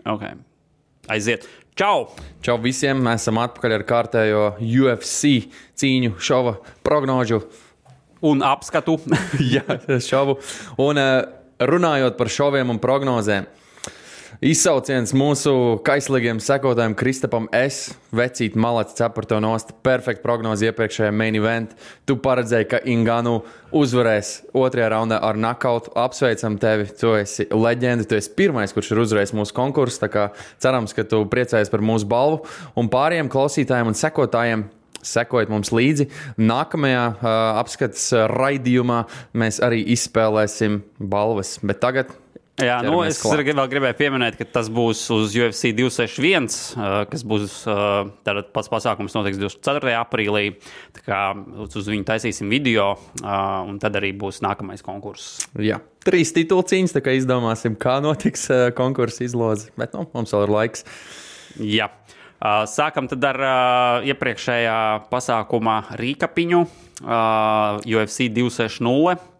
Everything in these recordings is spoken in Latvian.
Okay. Aiziet. Čau! Čau visiem, mēs esam atpakaļ ar kārtējo UFC cīņu šova prognožu. Un apskatu. Jā, šovu. Un runājot par šoviem un prognozēm, izsauciens mūsu kaislīgiem sekotājiem Kristapam S. Vecīt malacis cepar to nost. Perfekta prognoze iepriekšējā main event. Tu paredzēji, ka Ngannou uzvarēs otrajā raundā ar knockoutu. Apsveicam tevi, tu esi leģenda. Tu esi pirmais, kurš ir uzvarējis mūsu konkursu. Tā kā cerams, ka tu priecājies par mūsu balvu. Un pārējiem klausītājiem un sekotājiem sekojiet mums līdzi. Nākamajā apskates raidījumā mēs arī izspēlēsim balvas. Bet tagad... Jā, es vēl gribēju pieminēt, ka tas būs uz UFC 261, kas būs tātad pats pasākums notiks 24. aprīlī. Tā kā uz viņu taisīsim video, un tad arī būs nākamais konkurss. Jā, 3 titulu cīņas, tā kā izdomāsim, kā notiks konkursa izloze. Bet mums vēl ir laiks. Jā. Sākam tad ar iepriekšējā pasākuma rīkapiņu UFC 260.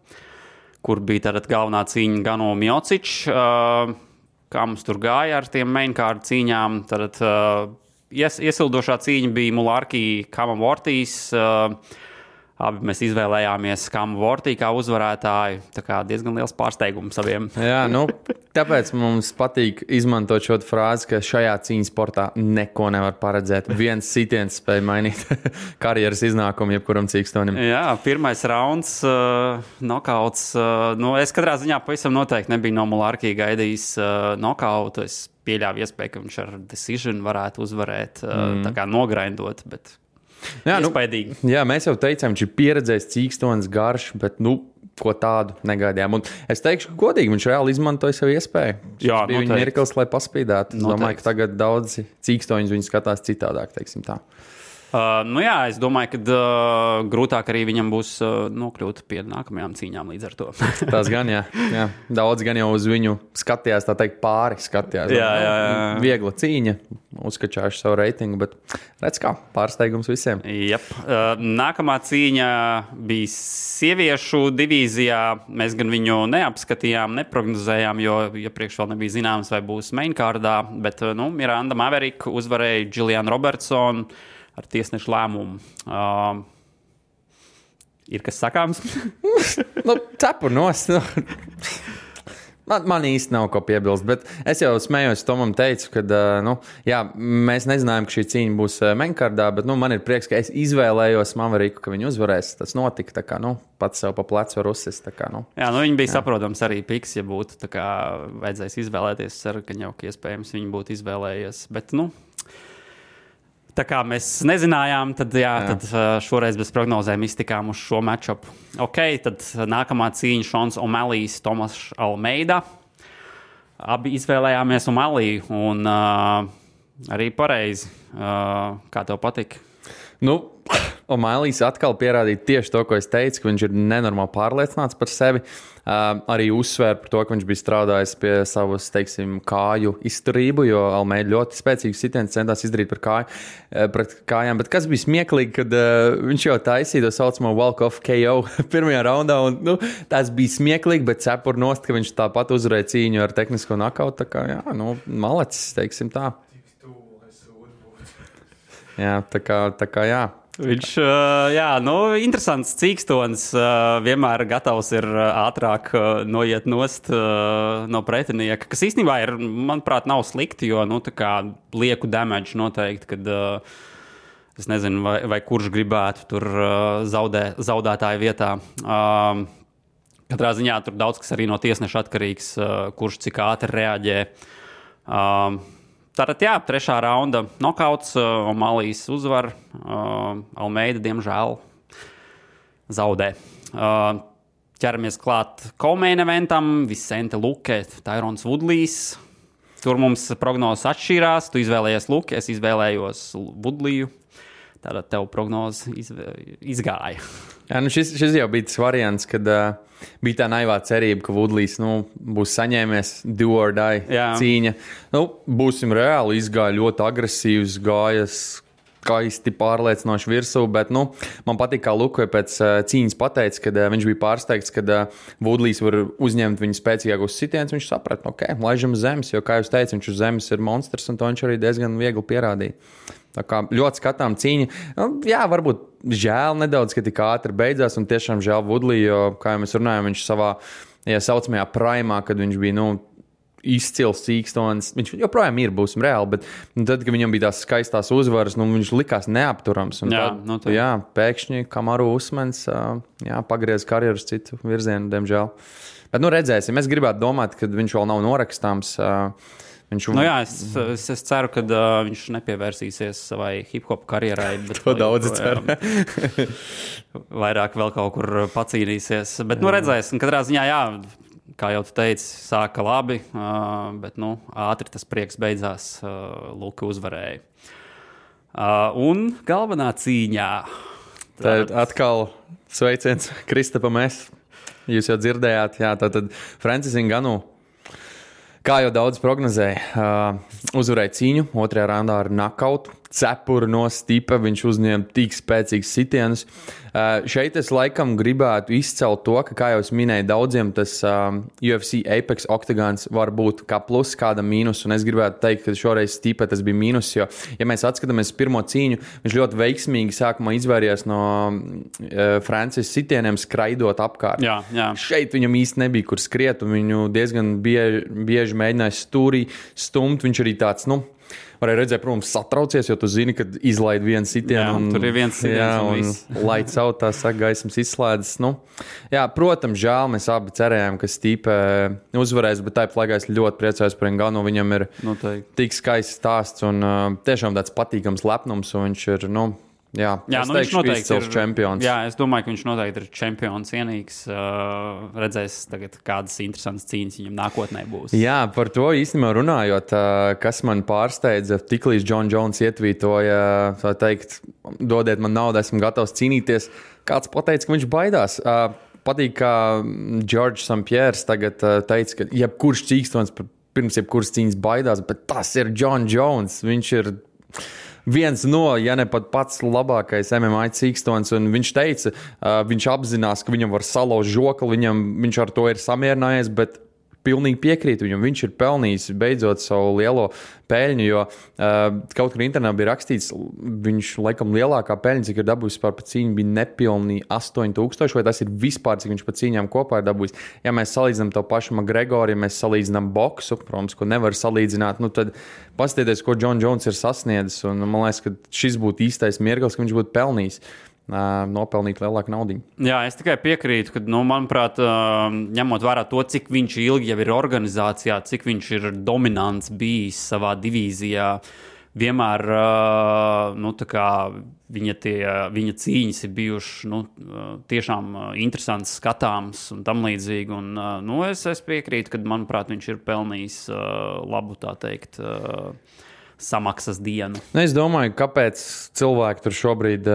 Kur bija tātad galvenā cīņa Ngannou Miocic. Kā mums tur gāja ar tiem mainkārdu cīņām. Tātad iesildošā cīņa bija Mulārki Kamavortīs. Abi mēs izvēlējāmies Kamavortī kā uzvarētāju. Tā kā diezgan liels pārsteigums saviem. Jā, tāpēc mums patīk izmantot šo frāzi, ka šajā cīņas sportā neko nevar paredzēt. Viens sitiens spēj mainīt karjeras iznākumu jebkuram cīkstonim. Jā, pirmais rauns, nokauts. Es katrā ziņā pavisam noteikti nebiju no Mulārki gaidījis nokautu. Es pieļāvu iespēju, ka viņš ar decision varētu uzvarēt, tā kā nograindot, bet... Jā, mēs jau teicām, viņš ir pieredzējis cīkstonis garš, bet ko tādu negaidījām. Un es teikšu, ka godīgi viņš reāli izmantoja savu iespēju. Jā, bija viņa mirklis, lai paspīdētu. Es domāju, ka tagad daudzi cīkstoņus viņi skatās citādāk, teiksim tā. Es domāju, ka grūtāk arī viņam būs nokļūt pie nākamajām cīņām līdz ar to. Tas gan, jā. Daudz gan jau uz viņu skatījās, tā teikt, pāri skatījās. Jā. Viegla cīņa, uzskačājuši savu reitingu, bet redz kā, pārsteigums visiem. Jep. Nākamā cīņa bija sieviešu divīzijā. Mēs gan viņu neapskatījām, neprognozējām, jo iepriekš vēl nebija zināms, vai būs mainkārdā, bet Miranda Maverick uzvarēja Julianu Robertsonu ar tiesnešu lēmumu. Ir kas sakāms? Cepur nost. Man īsti nav ko piebilst, bet es jau smējos Tomam teicu, ka mēs nezinājām, ka šī cīņa būs mainkārdā, bet man ir prieks, ka es izvēlējos Mavericku, ka viņi uzvarēs. Tas notika, tā kā, pats sev pa plecu var uzsist. Tā kā, Jā, viņi bija saprotams arī piks, ja būtu, tā kā vajadzēs izvēlēties, ceru, ka jau iespējams viņi būtu izvēlējies, bet, tā kā mēs nezinājām, tad šoreiz bez prognozēm iztikām uz šo matchupu. Tad nākamā cīņa Šons O'Malley's Tomas Almeida. Abi izvēlējāmies O'Malley un arī pareizi. Kā tev patika? O'Malley's atkal pierādīja tieši to, ko es teicu, ka viņš ir nenormāli pārliecināts par sevi. Arī uzsvēra par to, ka viņš bija strādājis pie savas, teiksim, kāju izturību, jo Almeida ļoti spēcīgs sitiens centās izdarīt pret kājām. Bet kas bija smieklīgi, kad viņš jau taisīja to saucamo walk-off KO pirmajā raundā, un tas bija smieklīgi, bet cepur nost, ka viņš tāpat uzvarēja cīņu ar tehnisko knockoutu. Tā kā, malacis, teiksim tā. Jā, tā kā jā. Viņš, interesants cīkstonis, vienmēr gatavs ir ātrāk noiet nost no pretinieka, kas īstenībā ir, manuprāt, nav slikti, jo, tā kā lieku damage noteikti, kad es nezinu, vai kurš gribētu tur zaudētāju vietā. Katrā ziņā tur daudz kas arī no tiesneša atkarīgs, kurš cik ātri reaģē. Tātad, trešā raunda nokauts, O'Malley's uzvar, Almeida, diemžēl, zaudē. Ķeramies klāt co-main eventam, Vicente Luque, Tyrons Woodleys. Tur mums prognozes atšķīrās, tu izvēlējies Luque, es izvēlējos Woodleyu. Tātad tev prognoze izgāja. Jā, šis jau bija tas variants, kad bija tā naivā cerība, ka Woodleys būs saņēmies do or die cīņa. Būsim reāli, izgāja ļoti agresīvs, gājas skaisti pārliecinoši virsū, bet, man patīk, kā Lukoja pēc cīņas pateica, kad viņš bija pārsteigts, kad Woodleys var uzņemt viņu spēcīgākos sitienus, viņš saprata, laižam uz zemes, jo, kā jūs teicat, viņš uz zemes ir monstrs, un to viņš arī diezgan viegli pierādīja. Tā kā ļoti skatām cīņa. Jā, varbūt žēl nedaudz, ka tik ātri beidzās, un tiešām žēl Woodley, jo, kā jau mēs runājam, viņš savā saucamajā primā, kad viņš bija, izcils cīkstons. Viņš joprojām būsim reāli, bet tad, kad viņam bija tās skaistās uzvaras, viņš likās neapturams. Un tad, pēkšņi Kamaru Usmans pagriez karjeru uz citu virzienu, diemžēl. Bet, redzēsim. Es gribētu domāt, ka viņš vēl nav norakstāms. Es ceru, ka viņš nepievērsīsies savai hip-hop karjerai. To daudz ceru. Vairāk vēl kaut kur pacīnīsies. Bet, redzēsim, katrā ziņā, kā jau tu teici, sāka labi, bet, ātri tas prieks beidzās, Luka uzvarēja. Un galvenā cīņā. Tad atkal sveiciens Kristapam S. Jūs jau dzirdējāt, tātad Francis Ngannou. Kā jau daudz prognozēja, uzvarēja cīņu, otrajā raundā ar nakautu, cepuru no stipa, viņš uzņēma tik spēcīgs sitienus. Šeit es laikam gribētu izcelt to, ka, kā jau es minēju, daudziem tas UFC Apex Octagons var būt kā plus, kāda mīnus, un es gribētu teikt, ka šoreiz stipa tas bija mīnus, jo, ja mēs atskatāmies pirmo cieņu, viņš ļoti veiksmīgi sākumā izvairījās no Francis sitieniem skraidot apkārt. Jā. Šeit viņam īsti nebija, kur skriet, un viņu diezgan bieži mēģināja stūrī stumt, viņš arī tāds, varēja redzēt, protams, satraucies, jo tu zini, kad izlaid vienu sitienu. Tur ir viens sitiens. Un laids out, tā saka, gaismas izslēdzas. Protams, žēl, mēs abi cerējām, ka Stipe uzvarēs, bet tāpat laikā es ļoti priecājos par Ngannou. Viņam ir tik skaists stāsts un tiešām tāds patīkams lepnums, un viņš ir, viņš noteikti ir čempions. Jā, es domāju, ka viņš noteikti ir čempions cienīgs. Redzēs tagad, kādas interesantas cīņas viņam nākotnē būs. Jā, par to īstenībā runājot, kas man pārsteidza, tiklīdz Jon Jones ietvītoja, tā teikt, dodiet man naudu, esmu gatavs cīnīties. Kāds pateica, ka viņš baidās. Patīk, kā George St. Pierre tagad teica, ka jebkurš cīkstons pirms jebkuras cīņas baidās, bet tas ir Jon Jones. Viņš ir viens no, ja ne pat pats labākais MMA cīkstons, un viņš teica, viņš apzinās, ka viņam var salauzt žokli, viņš ar to ir samierinājies, bet pilnīgi piekrīt viņam. Viņš ir pelnījis beidzot savu lielo peļņu, jo kaut kur internetā bija rakstīts, viņš laikam lielākā peļņa, cik ir dabūjis par cīņu, bija nepilnīgi 8,000, vai tas ir vispār, cik viņš pa cīņām kopā ir dabūjis. Ja mēs salīdzinām to pašu McGregoru, ja mēs salīdzinām boksu, protams, ko nevar salīdzināt, tad paskatieties, ko Jon Jones ir sasniedzis, un man liekas, ka šis būtu īstais mirklis, ka viņš būtu pelnījis. Nopelnīt lielāku naudu. Jā, es tikai piekrītu, ka, manuprāt, ņemot vērā to, cik viņš ilgi jau ir organizācijā, cik viņš ir dominants bijis savā divīzijā, vienmēr viņa cīņas ir bijušas tiešām interesants, skatāms un tam līdzīgi. Un, es piekrītu, ka, manuprāt, viņš ir pelnījis labu, tā teikt, samaksas dienu. Es domāju, kāpēc cilvēki tur šobrīd,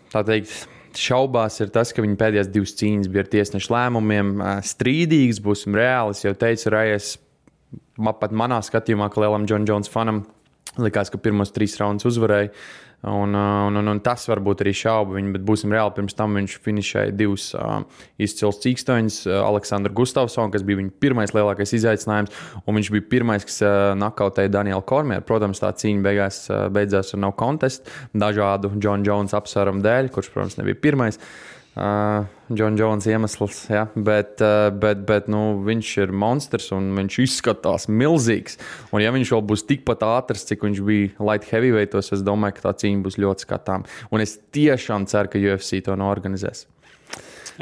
tā teikt, šaubās, ir tas, ka viņa pēdējās divas cīņas bija ar tiesnešu lēmumiem strīdīgas, būsim reāli. Es jau teicu, Rajas, pat manā skatījumā, ka lielam Jon Jones fanam likās, ka pirmos 3 raundus uzvarēja. Un tas varbūt arī šauba viņu, bet būsim reāli, pirms tam viņš finišēja 2 izcils cīkstoņus, Aleksandru Gustavsonu, kas bija viņa pirmais lielākais izaicinājums, un viņš bija pirmais, kas nakautēja Danielu Kormieru. Protams, tā cīņa beidzās ar no contest, dažādu Jon Jones apsvērumu dēļ, kurš, protams, nebija pirmais. Jon Jones iemesls, ja, bet viņš ir monstrs un viņš izskatās milzīgs. Un ja viņš vēl būs tikpat ātrs, cik viņš bija light heavyweightos, es domāju, ka tā cīņa būs ļoti skatām. Un es tiešām ceru, ka UFC to norganizēs.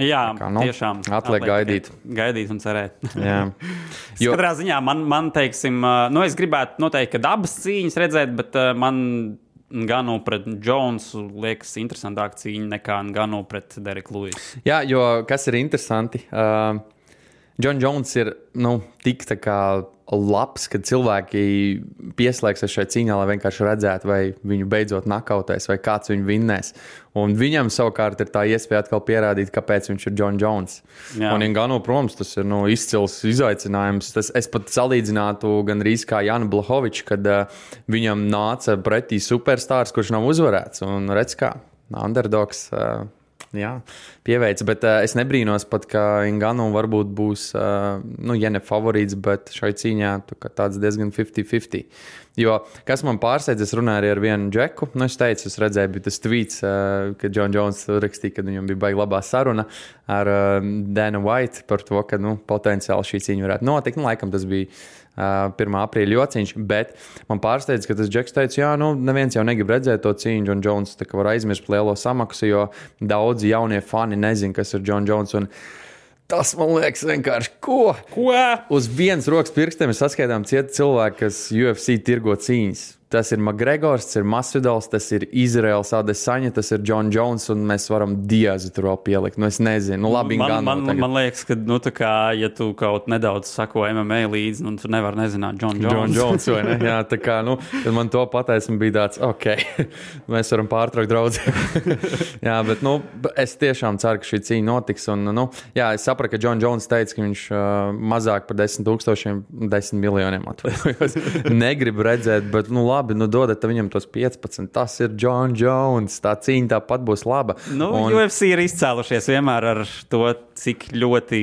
Jā, tiešām. Atliek gaidīt. Gaidīt un cerēt. Jā. Katrā ziņā man teiksim, es gribētu noteikti, ka abas cīņas redzēt, bet man Ngannou pret Jonesu liekas interesantāka cīņa nekā Ngannou pret Dereku Luisu. Jā, jo kas ir interesanti, Jon Jones ir tik tā kā labs, kad cilvēki pieslēgsies šai cīņā, lai vienkārši redzētu, vai viņu beidzot nakautēs, vai kāds viņu vinnēs. Un viņam savukārt ir tā iespēja atkal pierādīt, kāpēc viņš ir Jon Jones. Jā. Un Ngannou, protams, tas ir izcils izaicinājums. Es pat salīdzinātu gandrīz kā Janu Blachowicz, kad viņam nāca pretī superstārs, kurš nav uzvarēts. Un redz kā, underdogs... Jā, pieveic, bet es nebrīnos pat, ka Ngannou varbūt būs, ja ne favorīts, bet šai cīņā tāds diezgan 50-50. Jo, kas man pārsteidz, es runāju arī ar vienu džeku, es teicu, es redzēju, bija tas tweets, kad Jon Jones rakstīja, kad viņam bija baigi labā saruna ar Dana White par to, ka, potenciāli šī cīņa varētu notikt. Laikam tas bija 1. aprīļa jociņš, bet man pārsteidz, ka tas džeks teica, jā, neviens jau negrib redzēt to cīņu, Jon Jones tā kā var aizmirst lielo samaksu, jo daudzi jaunie fani nezin, kas ir Jon Jones, un tas, man liekas, vienkārši ko? Uz vienas rokas pirkstiem ir saskaitām cieti cilvēki, kas UFC tirgo cīņas. Tas ir Makgregors, tas ir Masvidals, tas ir Izraels Adesaņa, tas ir Jon Jones, un mēs varam Diazu tur vēl pielikt. Es nezinu, labi, man liekas, ka, tā kā, ja tu kaut nedaudz sako MMA līdzi, tu nevari nezināt Jon Jones. Jon Jones, vai ne? Jā, tā kā, kad man to pateica, man bija tāds, ok, mēs varam pārtraukt draudzību. Jā, bet, es tiešām ceru, ka šī cīņa notiks, un, jā, es sapratu, ka Jon Jones teica, ka viņš mazāk par 10 miljoniem atvainojos. Negrib redzēt, bet, labi, dodat viņam tos 15. Tas ir Jon Jones. Tā cīņa tāpat būs laba. UFC ir izcēlušies vienmēr ar to, cik ļoti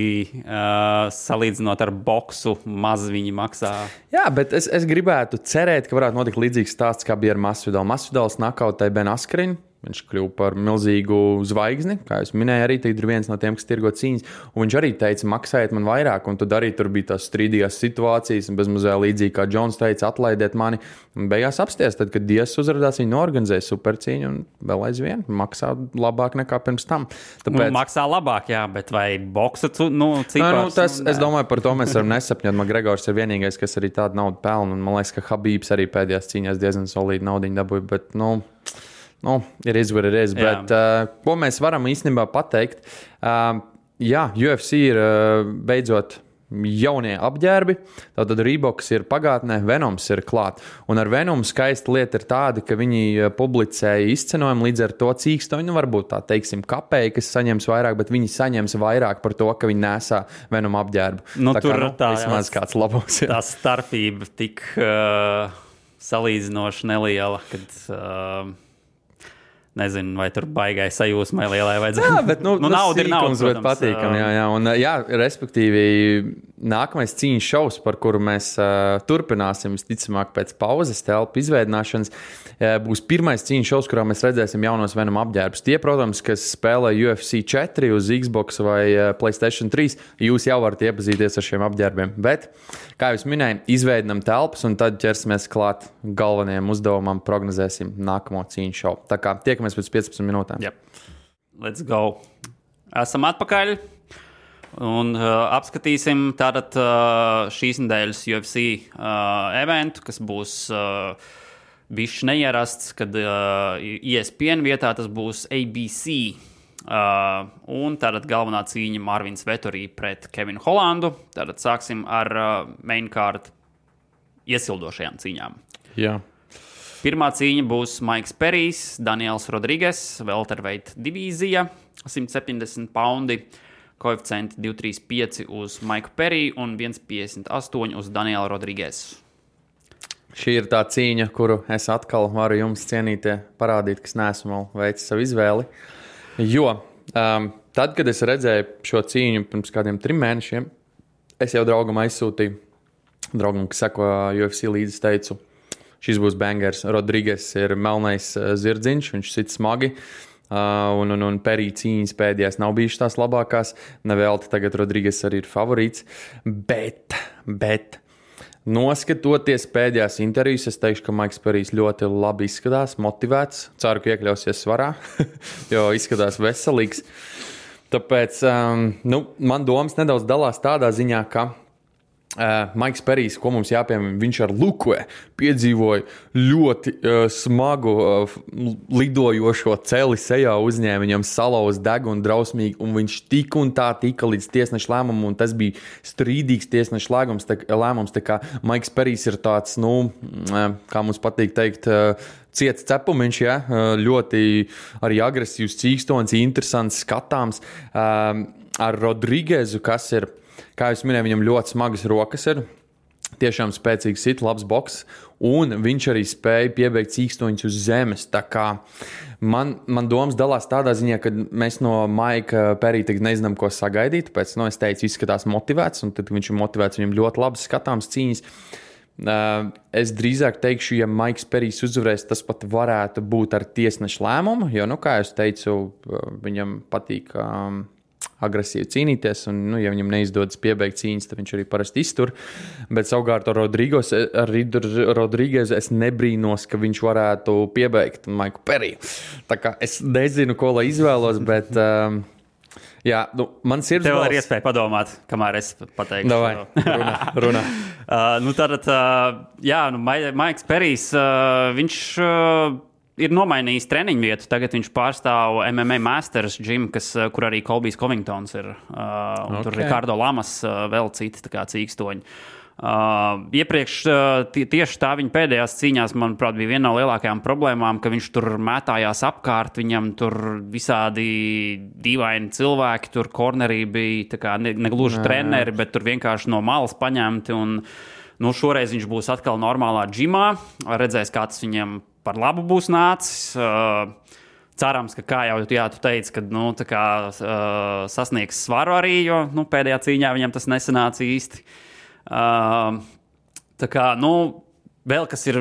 salīdzinot ar boksu maz viņi maksā. Jā, bet es gribētu cerēt, ka varētu notikt līdzīgs stāsts, kā bija ar Masvidal. Masvidals nakautēja Ben Askren. Viņš kļuva par milzīgu zvaigzni, kā jūs minēju, arī ir viens no tiem, kas tirgo cīņas. Un viņš arī teica, maksājiet man vairāk, un tad arī tur bija tās strīdīgās situācijas, un bezmazliet līdzīgi kā Džons teica, atlaidiet mani. Un beigās apsties, tad, kad Dias uzrādās, viņi norganizēja supercīņu un vēl aizvien maksā labāk nekā pirms tam. Tāpēc... maksā labāk, jā, bet vai boksa cipars? Es domāju, par to mēs varam nesapņot. Makgregors ir vienīgais, kas arī tādu naudu pelna, un man liekas, ka Habibs arī pēdējās cīņās diezgan solīdu naudiņu dabūja, bet, ir izvarēs, bet ko mēs varam īstenībā pateikt? Jā, UFC ir beidzot jaunie apģērbi, tātad Reeboks ir pagātnē, Venoms ir klāt. Un ar Venomu skaista lieta ir tāda, ka viņi publicēja izcenojumu līdz ar to cīkstoņu, varbūt tā teiksim kapēji, kas saņems vairāk, bet viņi saņems vairāk par to, ka viņi nesā Venomu apģērbu. Vismaz kāds labos. Tā starpība tik salīdzinoši neliela, kad... Nezinu, vai tur baigai sajūsmai lielai vajadzētu. Jā, bet nauda ir nauda, bet patīkam. Jā. Un, respektīvi, nākamais cīņas šovs, par kuru mēs turpināsim, visticamāk, pēc pauzes telpu izveidināšanas, būs pirmais cīņas šovs, kurā mēs redzēsim jaunos Venom apģērbus. Tie, protams, kas spēlē UFC 4 uz Xbox vai PlayStation 3, jūs jau varat iepazīties ar šiem apģērbiem. Bet, kā jūs minēju, izveidinam telpas un tad ķersimies klāt galvenajiem uzdevumam, prognozēsim nākamo cīņas šovu. Tā kā tiekamies pēc 15 minūtēm. Yep. Let's go. Esam atpakaļ un apskatīsim tātad šīs nedēļas UFC eventu, kas būs bišķi neierasts, kad ESPN vietā tas būs ABC. Un tātad galvenā cīņa Marvins Vettori pret Kevinu Hollandu. Tātad sāksim ar main card iesildošajām cīņām. Jā. Pirmā cīņa būs Maiks Perijs, Daniels Rodrīgas, welterweight divīzija, 170 poundi, koeficienti 235 uz Maiku Periju un 158 uz Danielu Rodrīgas. Šī ir tā cīņa, kuru es atkal varu jums cienītie parādīt, kas neesmu vēl veicis savu izvēli. Jo tad, kad es redzēju šo cīņu pirms kādiem 3 mēnešiem, es jau draugam aizsūtīju, draugam, kas seko UFC līdzi, teicu, šis būs bangers. Rodrīgas ir melnais zirdziņš, viņš sit smagi, un Perija cīņas pēdējās nav bijušas tās labākās. Nevelti tagad Rodrīgas arī ir favorīts, bet noskatoties pēdējās intervijas, es teikšu, ka Maiks Perijs ļoti labi izskatās, motivēts. Ceru, ka iekļausies svarā, jo izskatās veselīgs. Tāpēc man domas nedaudz dalās tādā ziņā, ka Maiks Perijs, ko mums jāpiemina, viņš ar Lukue piedzīvoja ļoti smagu lidojošo celi sejā uzņēma, viņam salauz degunu drausmīgi, un viņš tik un tā tika līdz tiesneša lēmumam, un tas bija strīdīgs tiesneša lēmums, tā kā Maiks Perijs ir tāds, kā mums patīk teikt, ciets cepumiņš, ja? Ļoti arī agresīvs cīkstons, interesants, skatāms, ar Rodrīgezu, kas ir, kā jūs minēju, viņam ļoti smagas rokas ir, tiešām spēcīgs sit, labs boks, un viņš arī spēja piebeigt cīkstoņus uz zemes. Tā kā man domas dalās tādā ziņā, ka mēs no Maika Perija tagad nezinām, ko sagaidīt, tāpēc, es teicu, izskatās motivēts, un tad viņš ir motivēts, viņam ļoti labas skatāms cīņas. Es drīzāk teikšu, ja Maiks Perijs uzvarēs, tas pat varētu būt ar tiesneša lēmumu, jo, kā es teicu, viņam patīk agresīvi cīnīties, un, ja viņam neizdodas piebeigt cīņas, tad viņš arī parasti iztur. Bet savukārt ar Rodrīgezu es nebrīnos, ka viņš varētu piebeigt Maiku Periju. Tā kā es nezinu, ko lai izvēlos, bet jā, man sirds tev ir iespēja padomāt, kamēr es pateikšu. Davai, runā. Maiks Perijs, viņš ir nomainījis treniņu vietu. Tagad viņš pārstāv MMA Masters gym, kur arī Colbijs Covingtons ir. Tur Ricardo Lamas, vēl citi cīkstoņi. Iepriekš tieši tā viņa pēdējās cīņās, manuprāt, bija viena no lielākajām problēmām, ka viņš tur mētājās apkārt, viņam tur visādi dīvaini cilvēki, tur kornerī bija negluži treneri, bet tur vienkārši no malas paņemti. Un, šoreiz viņš būs atkal normālā džimā, redzēs, kā tas viņam par labu būs nācis. Cerams, ka, kā jau tu teici, ka sasniegs svaru arī, jo pēdējā cīņā viņam tas nesanāca īsti. Vēl kas ir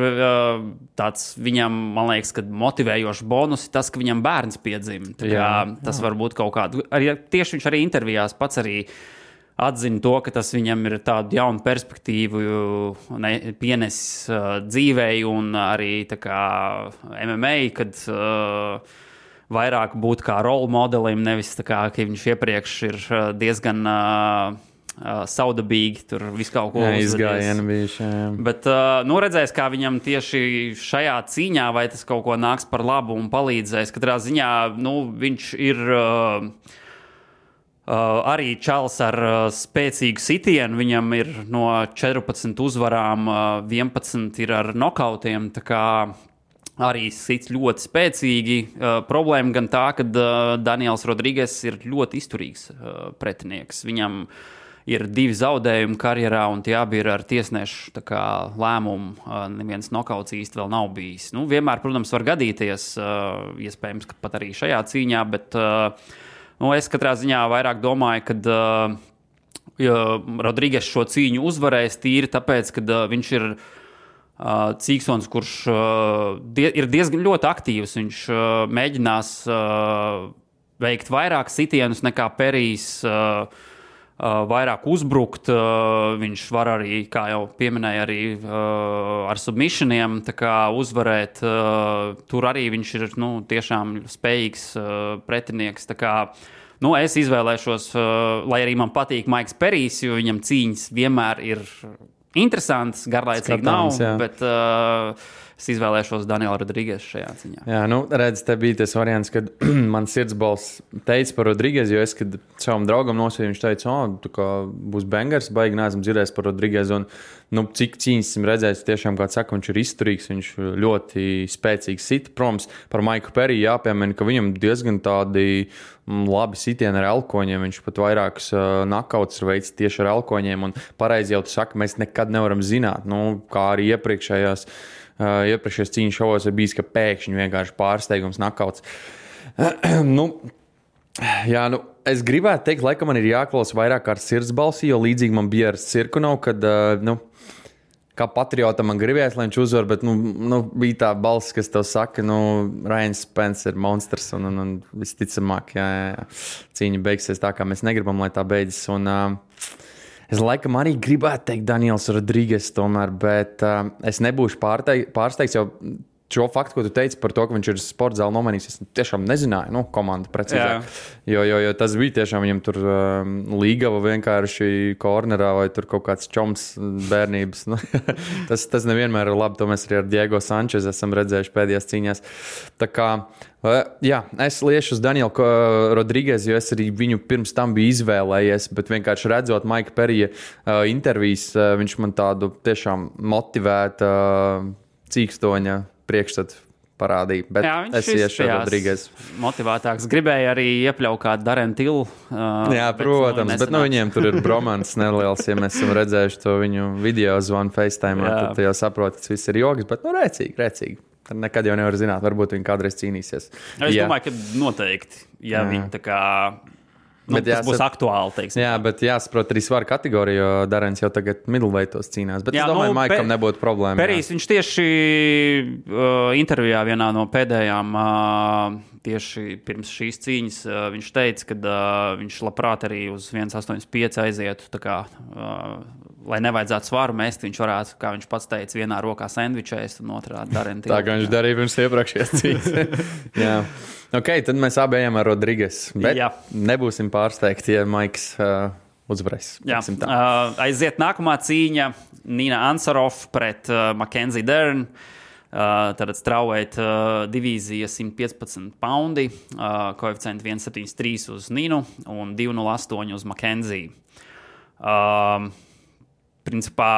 tāds viņam, man liekas, ka motivējošs bonus ir tas, ka viņam bērns piedzima. Tas var būt kaut kādu. Tieši viņš arī intervijās pats arī atzina to, ka tas viņam ir tādu jaunu perspektīvu pienesis dzīvei un arī MMA, kad vairāk būt kā role modelim, nevis ka viņš iepriekš ir diezgan saudabīgi, tur visu kaut ko uzvedies. Bet redzēs, kā viņam tieši šajā cīņā, vai tas kaut ko nāks par labu un palīdzēs. Katrā ziņā, viņš ir arī čals ar spēcīgu sitienu. Viņam ir no 14 uzvarām 11 ir ar nokautiem, tā kā arī sits ļoti spēcīgi. Problēma gan tā, ka Daniels Rodrīges ir ļoti izturīgs pretinieks. Viņam ir 2 zaudējumi karjerā, un tie abi ir ar tiesnešu lēmumu. Neviens nokauts īsti vēl nav bijis. Vienmēr, protams, var gadīties, iespējams, ka pat arī šajā cīņā, bet es katrā ziņā vairāk domāju, ka Rodrīges šo cīņu uzvarēs tīri tāpēc, ka viņš ir cīkstons, kurš ir diezgan ļoti aktīvs. Viņš mēģinās veikt vairāk sitienus nekā Perijs, vairāk uzbrukt. Viņš var arī, kā jau pieminēja, arī ar submissioniem uzvarēt. Tur arī viņš ir tiešām spējīgs pretinieks. Es izvēlēšos, lai arī man patīk Maiks Perijs, jo viņam cīņas vienmēr ir interesants, garlaicīgi nav, bet es izvēlēšos Danielu Rodrīgesu šajā ciņā. Jā, redz, te bija tas variants, kad man sirdsbalss teica par Rodrīgesu, jo es, kad savam draugam nosīju, viņš teica, būs bangers, baigi neesam dzirdējis par Rodrīgesu, un cik cīņas esam redzējis, tiešām, kā saka, viņš ir izturīgs, viņš ļoti spēcīgs sit. Protams, par Maiku Periju jāpiemina, ka viņam diezgan tādi labi sitieni ar elkoņiem, viņš pat vairākus nakauts ir veids tieši ar elkoņiem, un pareizi jau tu saki, mēs nekad nevaram zināt, kā arī iepriekšējās cīņu šovos ir bijis, ka pēkšņi vienkārši pārsteigums nakauts. Es gribētu teikt, laikam man ir jāklausa vairāk ar sirdsbalsi, jo līdzīgi man bija ar Cirkunov, kad, kā patriotam man gribējās, lai viņš uzvar, bet, bija tā balss, kas tev saka, Ryan Spence ir monstrs, un visticamāk, jā, cīņa beigsies tā, kā mēs negribam, lai tā beidzas, un es laikam arī gribētu teikt Daniels Rodrīges tomēr, bet es nebūšu pārsteigts, jo šo faktu, ko tu teici par to, ka viņš ir sporta zāli nomainījis, es tiešām nezināju, komanda precīzāk. Jo tas bija tiešām viņam tur līgava vienkārši kornerā vai tur kaut kāds čoms bērnības. Tas nevienmēr ir labi, to mēs arī ar Diego Sančez esam redzējuši pēdējās cīņās. Tā kā, es liešu uz Danielu Rodriguez, jo es arī viņu pirms tam biju izvēlējies, bet vienkārši redzot Maika Perija intervijas, viņš man tādu tiešām motivētu cīkstoņa priekšstatu parādīja, bet es iešu Rodriguez. Motivētāks. Gribēja arī iepļaut kādu Darren Till. Jā, protams, bet viņiem tur ir bromans neliels, ja mēs esam redzējuši to viņu video zvanu FaceTime, tad jau saprot, tas viss ir joks, bet rēcīgi. Tad nekad jau nevar zināt, varbūt viņi kādreiz cīnīsies. Es domāju, ka noteikti, ja viņi tā kā... tas būs aktuāli, teiksim. Jā, bet jāsaprot arī svaru kategoriju, jo Darens jau tagad middleweightos cīnās. Bet es domāju, Maikam nebūtu problēma. Perijs, viņš tieši intervijā vienā no pēdējām, tieši pirms šīs cīņas, viņš teica, ka viņš labprāt arī uz 1,85 aizietu, tā kā, lai nevajadzētu svaru mest, viņš varētu, kā viņš pats teica, vienā rokā sendvičēs un otrā Darren Till. Tā kā viņš darīja pirms iepriekšējās cīņas. Jā. Ok, tad mēs abi ejam ar Rodriguez, bet nebūsim pārsteigti, ja Maiks uzvarēs. Aiziet nākamā cīņa Nina Ansarov pret Mackenzie Dern. Tad strawweight divīzija 115 poundi, koeficienti 1,73 uz Ninu un 2,08 uz Mackenzie. Principā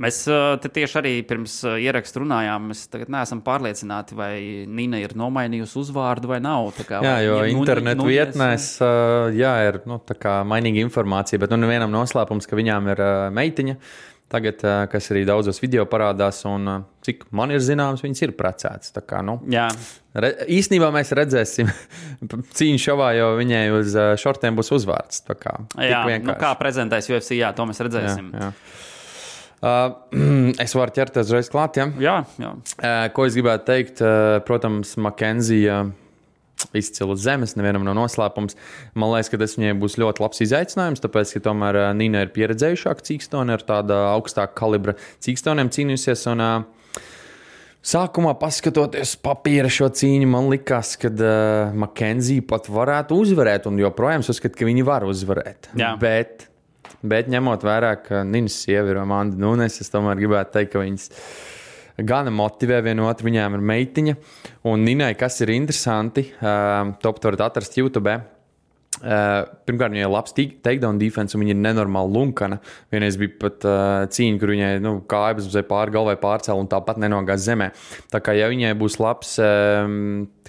mēs te tieši arī pirms ierakstu runājām. Mēs tagad neesam pārliecināti, vai Nina ir nomainījusi uzvārdu vai nav. Jo internetu vietnēs ir tā kā mainīga informācija, bet nevienam noslēpums, ka viņām ir meitiņa. Tagad, kas arī daudzos video parādās, un cik man ir zināms, viņas ir precētas. Tā kā, īstenībā mēs redzēsim cīņu šovā, jo viņai uz šortiem būs uzvārds. Tā kā, kā prezentēs UFC, to mēs redzēsim. Jā. Es varu ķerties uzreiz klāt, Jā. Ko es gribētu teikt, protams, Mackenzie izcila zemes, nevienam nav noslēpums. Man liekas, ka tas viņai būs ļoti labs izaicinājums, tāpēc, ka tomēr Nina ir pieredzējušāka cīkstone, ar tāda augstāka kalibra cīkstoniem cīnījusies, un sākumā paskatoties papīra šo cīņu, man likās, ka Mackenzie pat varētu uzvarēt, un joprojām uzskat, ka viņi var uzvarēt. Jā. Bet ņemot vērā, ka Ninas sieva ir Amanda Nunes, es tomēr gribētu teikt, ka viņas gana motivē vienu otru, viņām ir meitiņa. Un Ninai, kas ir interesanti, to varat atrast YouTube. Pirmkārt, viņai ir labs takedown defense, un viņa ir nenormāli lunkana. Vienreiz bija pat cīņa, kur viņai kājas uz pāri galvai pārcēla un tāpat nenogās zemē. Tā kā, ja viņai būs labs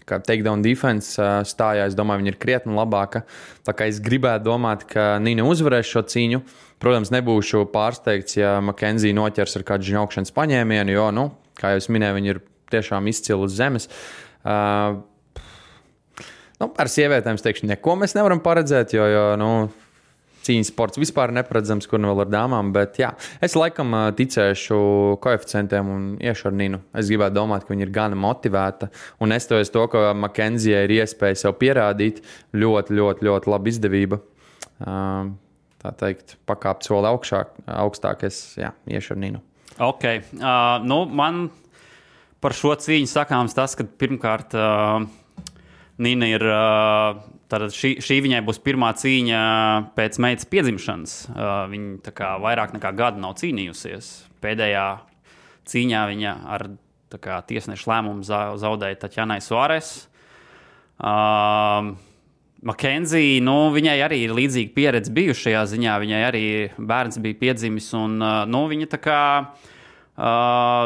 takedown defense stājā, es domāju, viņa ir krietni labāka. Tā kā es gribētu domāt, ka Nina uzvarēs šo cīņu. Protams, nebūšu pārsteigts, ja Mackenzie noķers ar kādu žņaukšanas paņēmienu, jo, kā jau es minēju, viņi ir tiešām izcili uz zemes. Par sievietēm es teikšu, neko mēs nevaram paredzēt, jo cīņas sports vispār neparedzams, kur vēl ar dāmām, bet es laikam ticēšu koeficientiem un iešu ar Ninu. Es gribētu domāt, ka viņa ir gana motivēta, un nestoties to, ka Mackenzie ir iespēja sev pierādīt, ļoti, ļoti, ļoti laba izdevība. Tā teikt, pakāpt soli augstāk, es iešu ar Ninu. Ok, man par šo cīņu sakāms tas, ka pirmkārt Nina ir, tātad šī viņai būs pirmā cīņa pēc meitas piedzimšanas. Viņa tā kā vairāk nekā gadu nav cīnījusies. Pēdējā cīņā viņa ar tiesnešu lēmumu zaudēja Tatjanai Suares. Mackenzie, viņai arī ir līdzīga pieredze bijusi šajā ziņā. Viņai arī bērns bija piedzimis, un viņa tā kā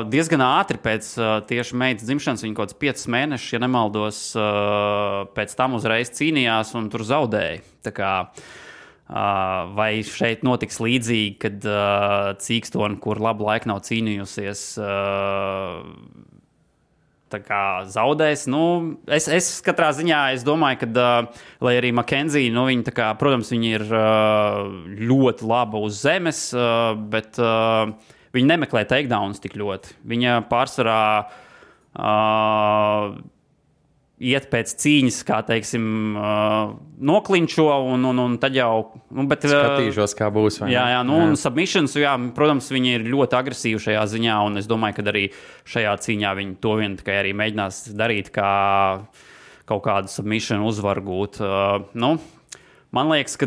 diezgan ātri pēc tieši meitas dzimšanas, viņa kaut kāds 5 mēnešus, ja nemaldos, pēc tam uzreiz cīnījās un tur zaudēja. Tā kā, vai šeit notiks līdzīgi, kad cīkstoni, kur labu laiku nav cīnījusies, tā kā zaudēs. Es katrā ziņā domāju, ka, lai arī Mackenzie, viņa tā kā, protams, viņa ir ļoti laba uz zemes, bet viņa nemeklē takedowns tik ļoti. Viņa pārsvarā iet pēc cīņas, kā teiksim, noklinčo, un tad jau... Bet, skatīšos, kā būs. Jā, un submissions, protams, viņi ir ļoti agresīvi šajā ziņā, un es domāju, ka arī šajā cīņā viņi to vien tikai arī mēģinās darīt, kā kaut kādu submission uzvaru gūt. Man liekas, ka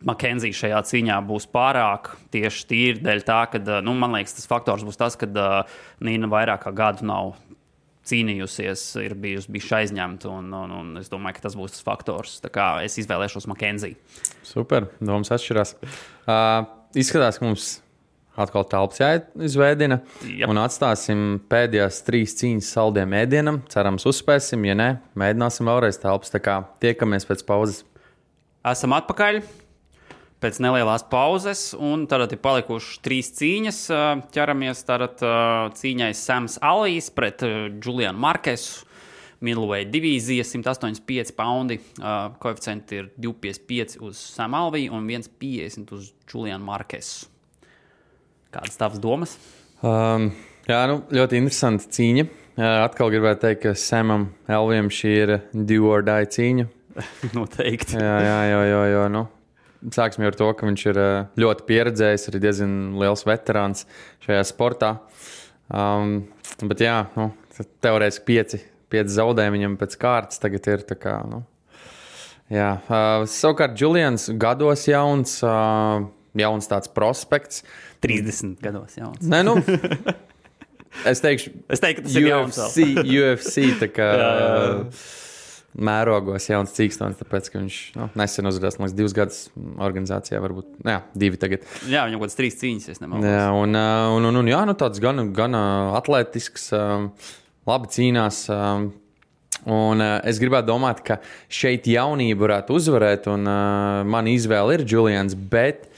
Makenzija šajā cīņā būs pārāk tieši tīri dēļ tā, ka, man liekas, tas faktors būs tas, ka Nīna vairāk kā gadu nav cīnījusies, ir bijusi aizņemta, un es domāju, ka tas būs tas faktors. Tā kā es izvēlēšos Makenziju. Super, domas atšķirās. Izskatās, ka mums atkal telpas jāizveidina, un atstāsim pēdējās 3 cīņas saldiem ēdienam. Cerams, uzspēsim, ja ne, mēģināsim vēlreiz telpas. Tā kā tiekamies pēc pauzes. Esam atpakaļ pēc nelielās pauzes, un tad ir palikušas 3 cīņas. Ķeramies tad cīņai Sams Alvijs pret Julianu Markesu. Middleweight divīzija, 185 paundi. Koeficienti ir 2,55 uz Samu Alviju un 1,50 uz Julianu Markesu. Kādas tavas domas? Ļoti interesanta cīņa. Atkal gribētu teikt, ka Samam Alvijam šī ir do or die cīņa. Noteikti. Jā. Sāksim ar to, ka viņš ir ļoti pieredzējis, arī diezgan liels veterāns šajā sportā. Bet teorētiski 5 zaudējumi viņam pēc kārtas tagad ir. Tā kā, savukārt Julians gados jauns tāds prospekts. 30 gados jauns. Nē, es teiktu, ka tas ir jauns. UFC tā kā... mērogos jauns cīkstons, tāpēc, ka viņš nesen uzvarējās, man liekas, 2 gadus organizācijā, varbūt, 2 tagad. Jā, viņam kaut kāds 3 cīņas, es nemaldos. Jā, tāds gan atletisks, labi cīnās, un es gribētu domāt, ka šeit jaunība varētu uzvarēt, un man izvēle ir Julians, bet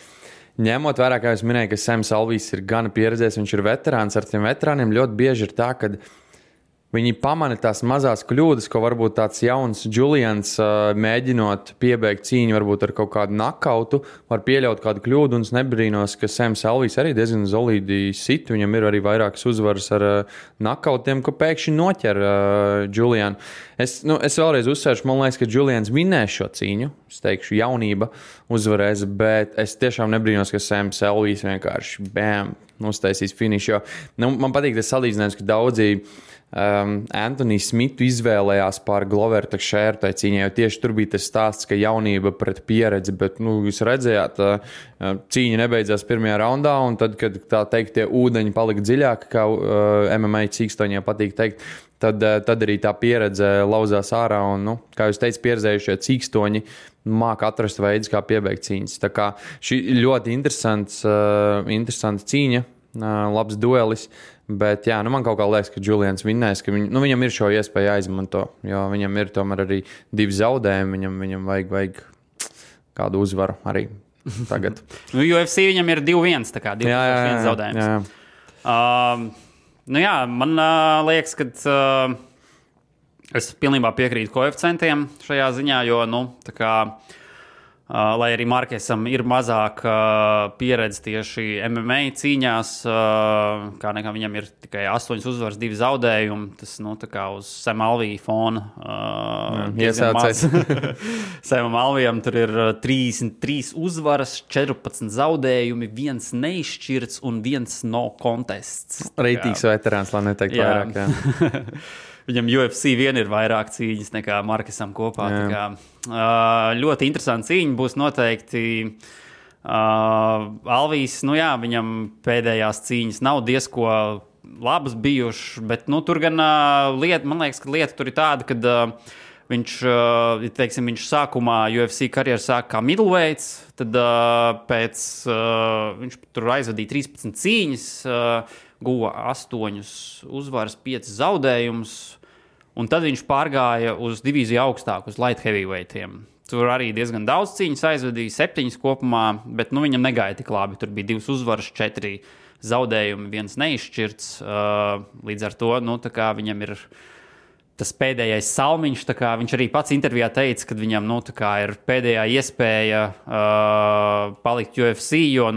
ņemot vērā, kā es minēju, ka Sams Alvijs ir gan pieredzējis, viņš ir veterāns, ar tiem veterāniem ļoti bieži ir tā, ka viņi pamana tās mazās kļūdas, ko varbūt tāds jauns Julians, mēģinot piebeigt cīņu, varbūt ar kaut kādu nakautu, var pieļaut kādu kļūdu, un es nebrīnos, ka Sams Alvijs arī diezgan solīdi sit. Viņam ir arī vairākas uzvaras ar nakautiem, ko pēkšņi noķer Julianu. Es vēlreiz uzsvēršu, man liekas, ka Julians vinnēs šo cīņu. Es teikšu, jaunība uzvarēs, bet es tiešām nebrīnos, ka Sams Alvijs vienkārši uztaisīs finišu. Man patīk tas salīdzinājums, ka daudzi Anthony Smithu izvēlējās pār Gloveru Teixeiru tai cīņai, jo tieši tur bija tas stāsts, ka jaunība pret pieredzi, bet, jūs redzējāt, cīņa nebeidzās pirmajā raundā, un tad, kad tā teikt, tie ūdeņi palika dziļāki, kā MMA cīkstoņiem patīk teikt, tad arī tā pieredze lauzās ārā, un, kā jūs teicat, pieredzējušie cīkstoņi māca atrast veidus, kā piebeigt cīņas. Tā kā šī ļoti interesanta cīņa, labs duelis. Bet, man kaut kā liekas, ka Julians vinnēs, ka viņam ir šo iespēju jāizmanto, jo viņam ir tomēr arī 2 zaudējumi, viņam vajag kādu uzvaru arī tagad. UFC viņam ir 2-1, tā kā 2-1 zaudējums. Man liekas, ka es pilnībā piekrītu koeficientiem šajā ziņā, jo, tā kā lai arī Markesam ir mazāk pieredze tieši MMA cīņās, kā nekā viņam ir tikai 8 uzvaras, 2 zaudējumi. Tas, tā kā uz Sam Alvija fona iesācēs. Samam Alvijam tur ir 33 uzvaras, 14 zaudējumi, 1 neizšķirts un 1 no contests. Reitīgs veterāns, lai neteikt vairāk. Jā. Viņam UFC vien ir vairāk cīņas nekā Markesam kopā. Tā kā, ļoti interesanti cīņa būs noteikti. Alvijs, viņam pēdējās cīņas nav diezko labas bijušas, bet tur gan man liekas, ka lieta tur ir tāda, ka viņš sākumā UFC karjeru sāk kā middleweights, tad viņš tur aizvadīja 13 cīņas, guva 8 uzvaras, 5 zaudējumus, un tad viņš pārgāja uz divīziju augstāk, uz light heavyweightiem. Tur arī diezgan daudz cīņas aizvadīja, 7 kopumā, bet viņam negāja tik labi. Tur bija 2 uzvaras, 4 zaudējumi, 1 neizšķirts. Līdz ar to, tā kā viņam ir tas pēdējais salmiņš, tā kā viņš arī pats intervijā teica, ka viņam, tā kā ir pēdējā iespēja palikt UFC, jo,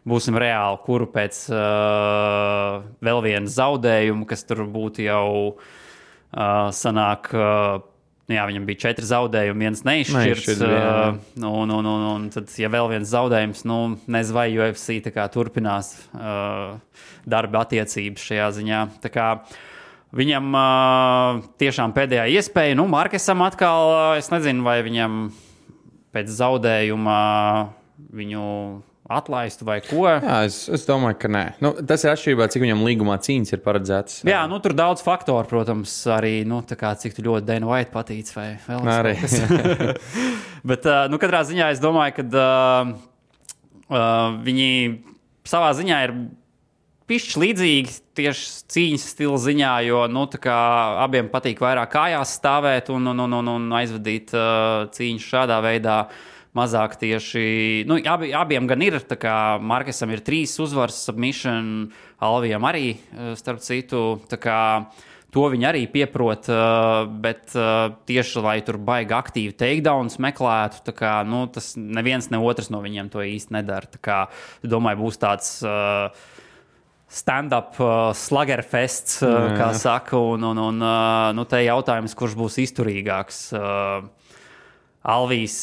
būsim reāli, kuru pēc vēl viena zaudējuma, kas tur būtu jau sanāk, jā, viņam bija 4 zaudējumi, 1 neizšķirts. Un tad, ja vēl viens zaudējums, nezinu, vai UFC tā kā turpinās darba attiecības šajā ziņā. Tā kā viņam tiešām pēdējā iespēja, Markesam atkal, es nezinu, vai viņam pēc zaudējuma viņu atlaistu vai ko. Jā, es domāju, ka nē. Tas ir atšķirībā, cik viņam līgumā cīņas ir paredzēts. Jā, tur daudz faktoru, protams, arī, tā kā cik tu ļoti Dana White patīc vai vēl arī. Bet, katrā ziņā es domāju, ka viņi savā ziņā ir pišķi līdzīgi tieši cīņas stila ziņā, jo, tā kā abiem patīk vairāk kājās stāvēt un aizvadīt cīņas šādā veidā. Mazāk tieši, abiem gan ir, tā kā Markesam ir 3 uzvaras, submission, Alvijam arī, starp citu, tā kā to viņi arī pieprot, bet tieši, lai tur baigi aktīvi takedowns meklētu, tā kā, tas neviens ne otrs no viņiem to īsti nedara, tā kā, domāju, būs tāds stand-up sluggerfests, kā saka, un te jautājums, kurš būs izturīgāks. Alvijs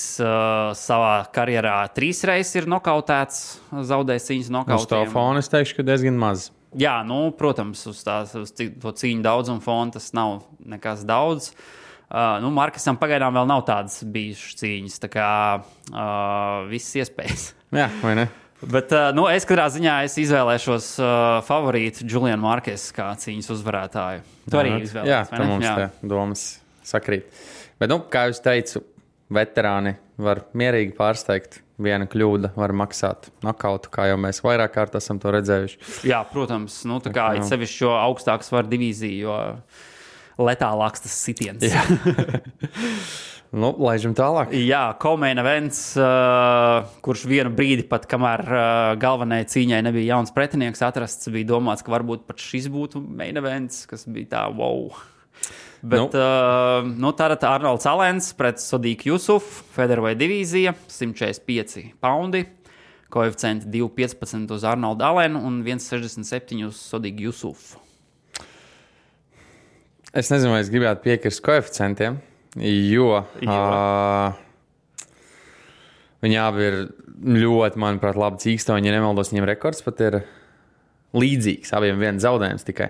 savā karjerā 3 reizes ir nokautēts, zaudējis cīņas nokautiem. Uz to fona es teikšu, ka diezgan maz. Jā, protams, uz to cīņu daudzumu fona tas nav nekas daudz. Markesam pagaidām vēl nav tādas bijušas cīņas, tā kā visas iespējas. Jā, vai ne? Bet es katrā ziņā izvēlēšos favorītu Julianu Markesu kā cīņas uzvarētāju. Tu arī izvēlējies, jā, vai ne? Jā, mums te domas sakrīt. Bet, kā jūs teicu, veterāni var mierīgi pārsteigt. Viena kļūda var maksāt nokautu, kā jau mēs vairāk kārt esam to redzējuši. Jā, protams. Tā kā ir sevišķi šo augstāku svaru divīziju, jo letālāks tas sitiens. Laižam tālāk. Jā, co-main events, kurš vienu brīdi pat, kamēr galvenajai cīņai nebija jauns pretinieks atrasts, bija domāts, ka varbūt pat šis būtu main events, kas bija tā, wow. Bet tātad Arnolds Alens pret Sodiku Jusufu, featherweight divīzija, 145 poundi, koeficienti 2,15 uz Arnoldu Alenu un 1,67 uz Sodiku Jusufu. Es nezinu, vai es gribētu piekrist koeficientiem, jo viņi abi ir ļoti, manuprāt, labi cīkstoņi. Ja nemaldos, viņiem rekords pat ir līdzīgs, abiem viens zaudējums tikai.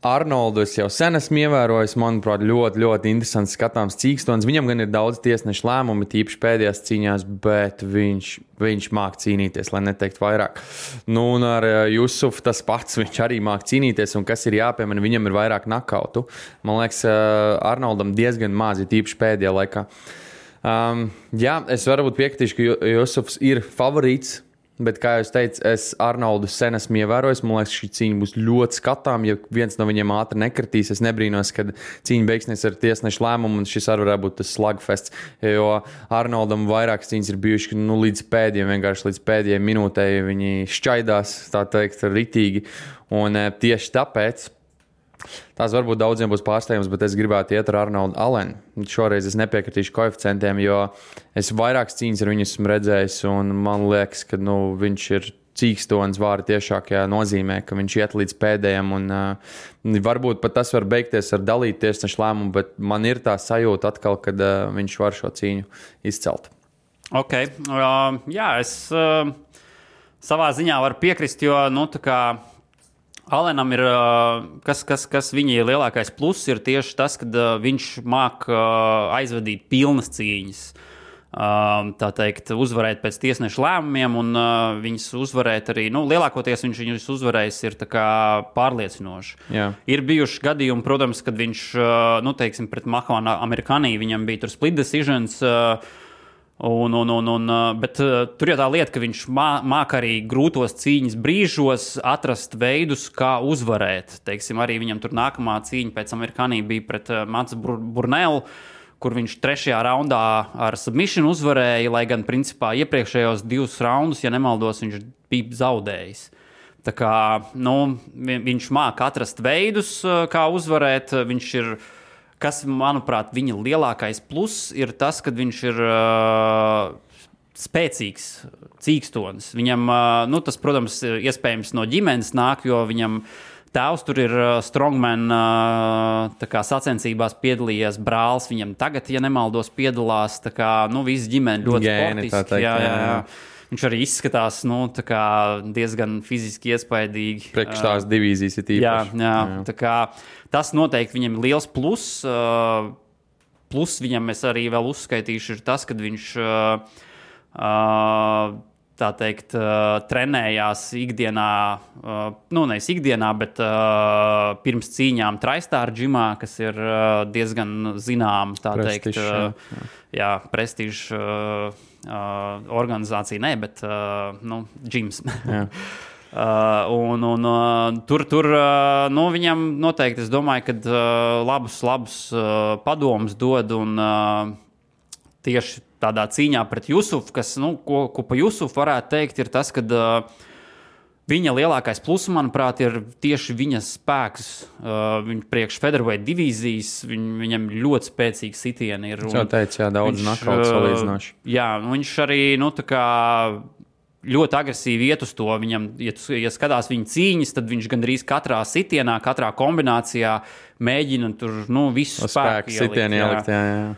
Arnoldu es jau sen esmu ievērojis, manuprāt, ļoti, ļoti interesants skatāms cīkstons. Viņam gan ir daudz tiesnešu lēmumi, tīpaši pēdējās cīņās, bet viņš māk cīnīties, lai neteikt vairāk. Un ar Jusufu tas pats, viņš arī māk cīnīties, un kas ir jāpiemina, viņam ir vairāk nakautu. Man liekas, Arnoldam diezgan maz, tīpaši pēdējā laikā. Jā, es varbūt piekritīšu, ka Jusufs ir favorīts. Bet, kā jūs teicat, es Arnoldu sen esmu ievērojis. Man liekas, šī cīņa būs ļoti skatām. Ja viens no viņiem ātri nekritīs, es nebrīnos, kad cīņa beigsies ar tiesnešu lēmumu, un šis arī varētu būt tas slugfests. Jo Arnoldam vairākas cīņas ir bijušas līdz pēdējai minūtei viņi šķaidās, tā teikt, ritīgi. Un tieši tāpēc tās varbūt daudziem būs pārsteigums, bet es gribētu iet ar Arnoldu Alenu. Šoreiz es nepiekritīšu koeficientiem, jo es vairākas cīņas ar viņu esmu redzējis, un man liekas, ka viņš ir cīkstons vārda tiešākajā nozīmē, ka viņš iet līdz pēdējiem, un varbūt pat tas var beigties ar dalītu tiesnešu lēmumu, bet man ir tā sajūta atkal, kad viņš var šo cīņu izcelt. Ok, jā, es savā ziņā varu piekrist, jo, tā kā Alenam ir, kas viņa lielākais pluss, ir tieši tas, ka viņš māk aizvadīt pilnas cīņas. Tā teikt, uzvarēt pēc tiesnešu lēmumiem, un viņas uzvarēt arī, lielākoties viņš viņus uzvarējis ir tā kā pārliecinoši. Jā. Ir bijuši gadījumi, protams, kad viņš, teiksim, pret Mahvanu Amerikanī, viņam bija tur split decisions, bet tur jau tā lieta, ka viņš māk arī grūtos cīņas brīžos atrast veidus, kā uzvarēt. Teiksim, arī viņam tur nākamā cīņa pēc Amerikanī bija pret Mats Burnelu, kur viņš 3. raundā ar submission uzvarēja, lai gan principā iepriekšējos 2 raundus, ja nemaldos, viņš bija zaudējis. Tā kā, viņš māk atrast veidus, kā uzvarēt, viņš ir. Kas, manuprāt, viņa lielākais pluss ir tas, ka viņš ir spēcīgs cīkstonis. Viņam, tas, protams, iespējams no ģimenes nāk, jo viņam tēvs tur ir strongman tā kā sacensībās piedalījies, brālis viņam tagad, ja nemaldos, piedalās, tā kā, nu, visi ģimeni ļoti sportiski. Jā. Viņš arī izskatās, nu, tā kā diezgan fiziski iespaidīgi. Priekš tās divīzijas ir īpaši. Jā. Tā kā tas noteikti viņam ir liels pluss. Plus viņam es arī vēl uzskaitīšu ir tas, kad viņš, tā teikt, trenējās ikdienā, nu, nevis ikdienā, bet pirms cīņām TriStar džimā, kas ir diezgan zinām, tā teikt, prestižs organizācija, ne, bet, nu, džims. Tur nu, viņam noteikti, es domāju, ka labus padomus dod un tieši tādā cīņā pret Jusufu, kas, nu, ko pa Jusufu varētu teikt, ir tas, ka viņa lielākais pluss, manuprāt, ir tieši viņa spēks. Viņa priekš featherweight divīzijas, viņam ļoti spēcīgi sitieni ir. Jau teicu, jā, daudz nakauts salīdzinoši. Jā, viņš arī, nu, tā kā ļoti agresīvi iet uz to. Viņam, ja skatās viņa cīņas, tad viņš gandrīz katrā sitienā, katrā kombinācijā mēģina tur, nu, visu spēku ielikt. Jā.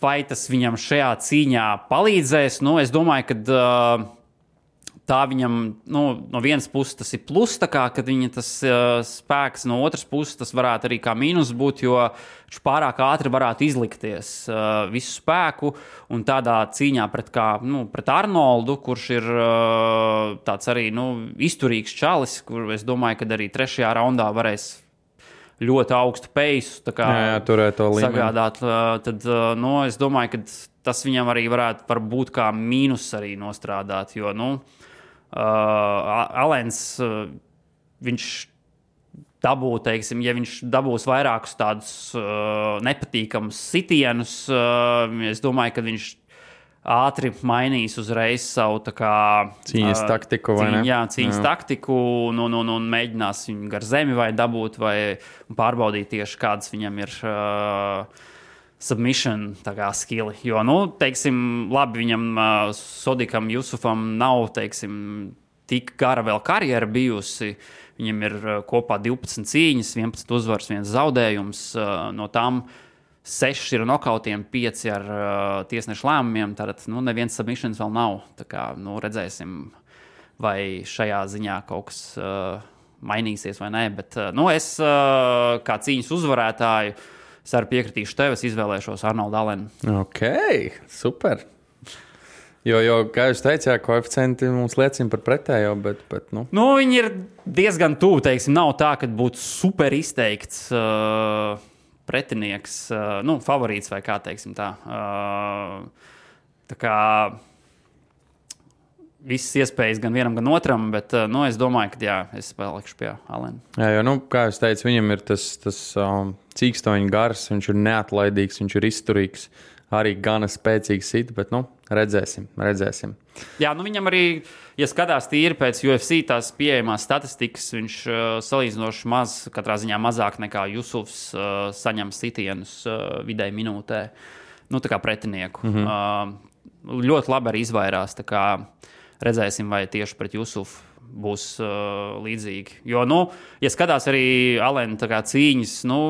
Vai tas viņam šajā cīņā palīdzēs? Nu, es domāju, ka tā viņam, nu, no vienas puses tas ir plus, tā kā, kad viņa tas spēks, no otras puses tas varētu arī kā mīnus būt, jo viņš pārāk ātri varētu izlikties visu spēku, un tādā cīņā pret Arnoldu, kurš ir tāds arī, nu, izturīgs čalis, kur es domāju, ka arī 3. raundā varēs ļoti augstu peisu sagādāt, tad, nu, es domāju, ka tas viņam arī varētu būt kā mīnus arī nostrādāt, jo, nu, Alens, viņš dabū, teiksim, ja viņš dabūs vairākus tādus nepatīkamus sitienus, es domāju, ka viņš ātri mainīs uzreiz savu tā kā cīņas taktiku, vai ne? Jā, cīņas taktiku un mēģinās viņu gar zemi vai dabūt vai pārbaudīt tieši kādas viņam ir submission tā kā skili, jo, nu, teiksim, labi viņam Sodikam Jusufam nav, teiksim, tik gara vēl karjera bijusi, viņam ir kopā 12 cīņas, 11 uzvaras, 1 zaudējums, no tām 6 ir nokautiem, 5 ar tiesnešu lēmumiem, tātad, nu, neviens submissions vēl nav, tā kā, nu, redzēsim, vai šajā ziņā kaut kas mainīsies vai nē, bet, nu, es kā cīņas uzvarētāju, es arī piekritīšu tev, es izvēlēšos Arnoldu Alenu. Ok, super. Jo, kā jūs teicāt, koeficienti mums liecina par pretējo, bet nu. Nu, viņi ir diezgan tuvu, teiksim, nav tā, ka būtu super izteikts pretinieks, nu, favorīts vai kā, teiksim tā. Tā kā visas iespējas gan vienam, gan otram, bet, nu, es domāju, ka, jā, es palikšu pie Alena. Jā, jo, nu, kā jūs teicu, viņam ir tas cīkstoņa gars, viņš ir neatlaidīgs, viņš ir izturīgs, arī gana spēcīgs sit, bet, nu, redzēsim. Jā, nu, viņam arī, ja skatās tīri pēc UFC tās pieejamās statistikas, viņš salīdzinoši maz, katrā ziņā mazāk nekā Jusufs saņem sitienus vidēji minūtē, nu, tā kā pretinieku. Ļoti labi arī izvairās, tā kā redzēsim, vai tieši pret Jusufu būs līdzīgi. Jo, nu, ja skatās arī Alena tā kā cīņas, nu,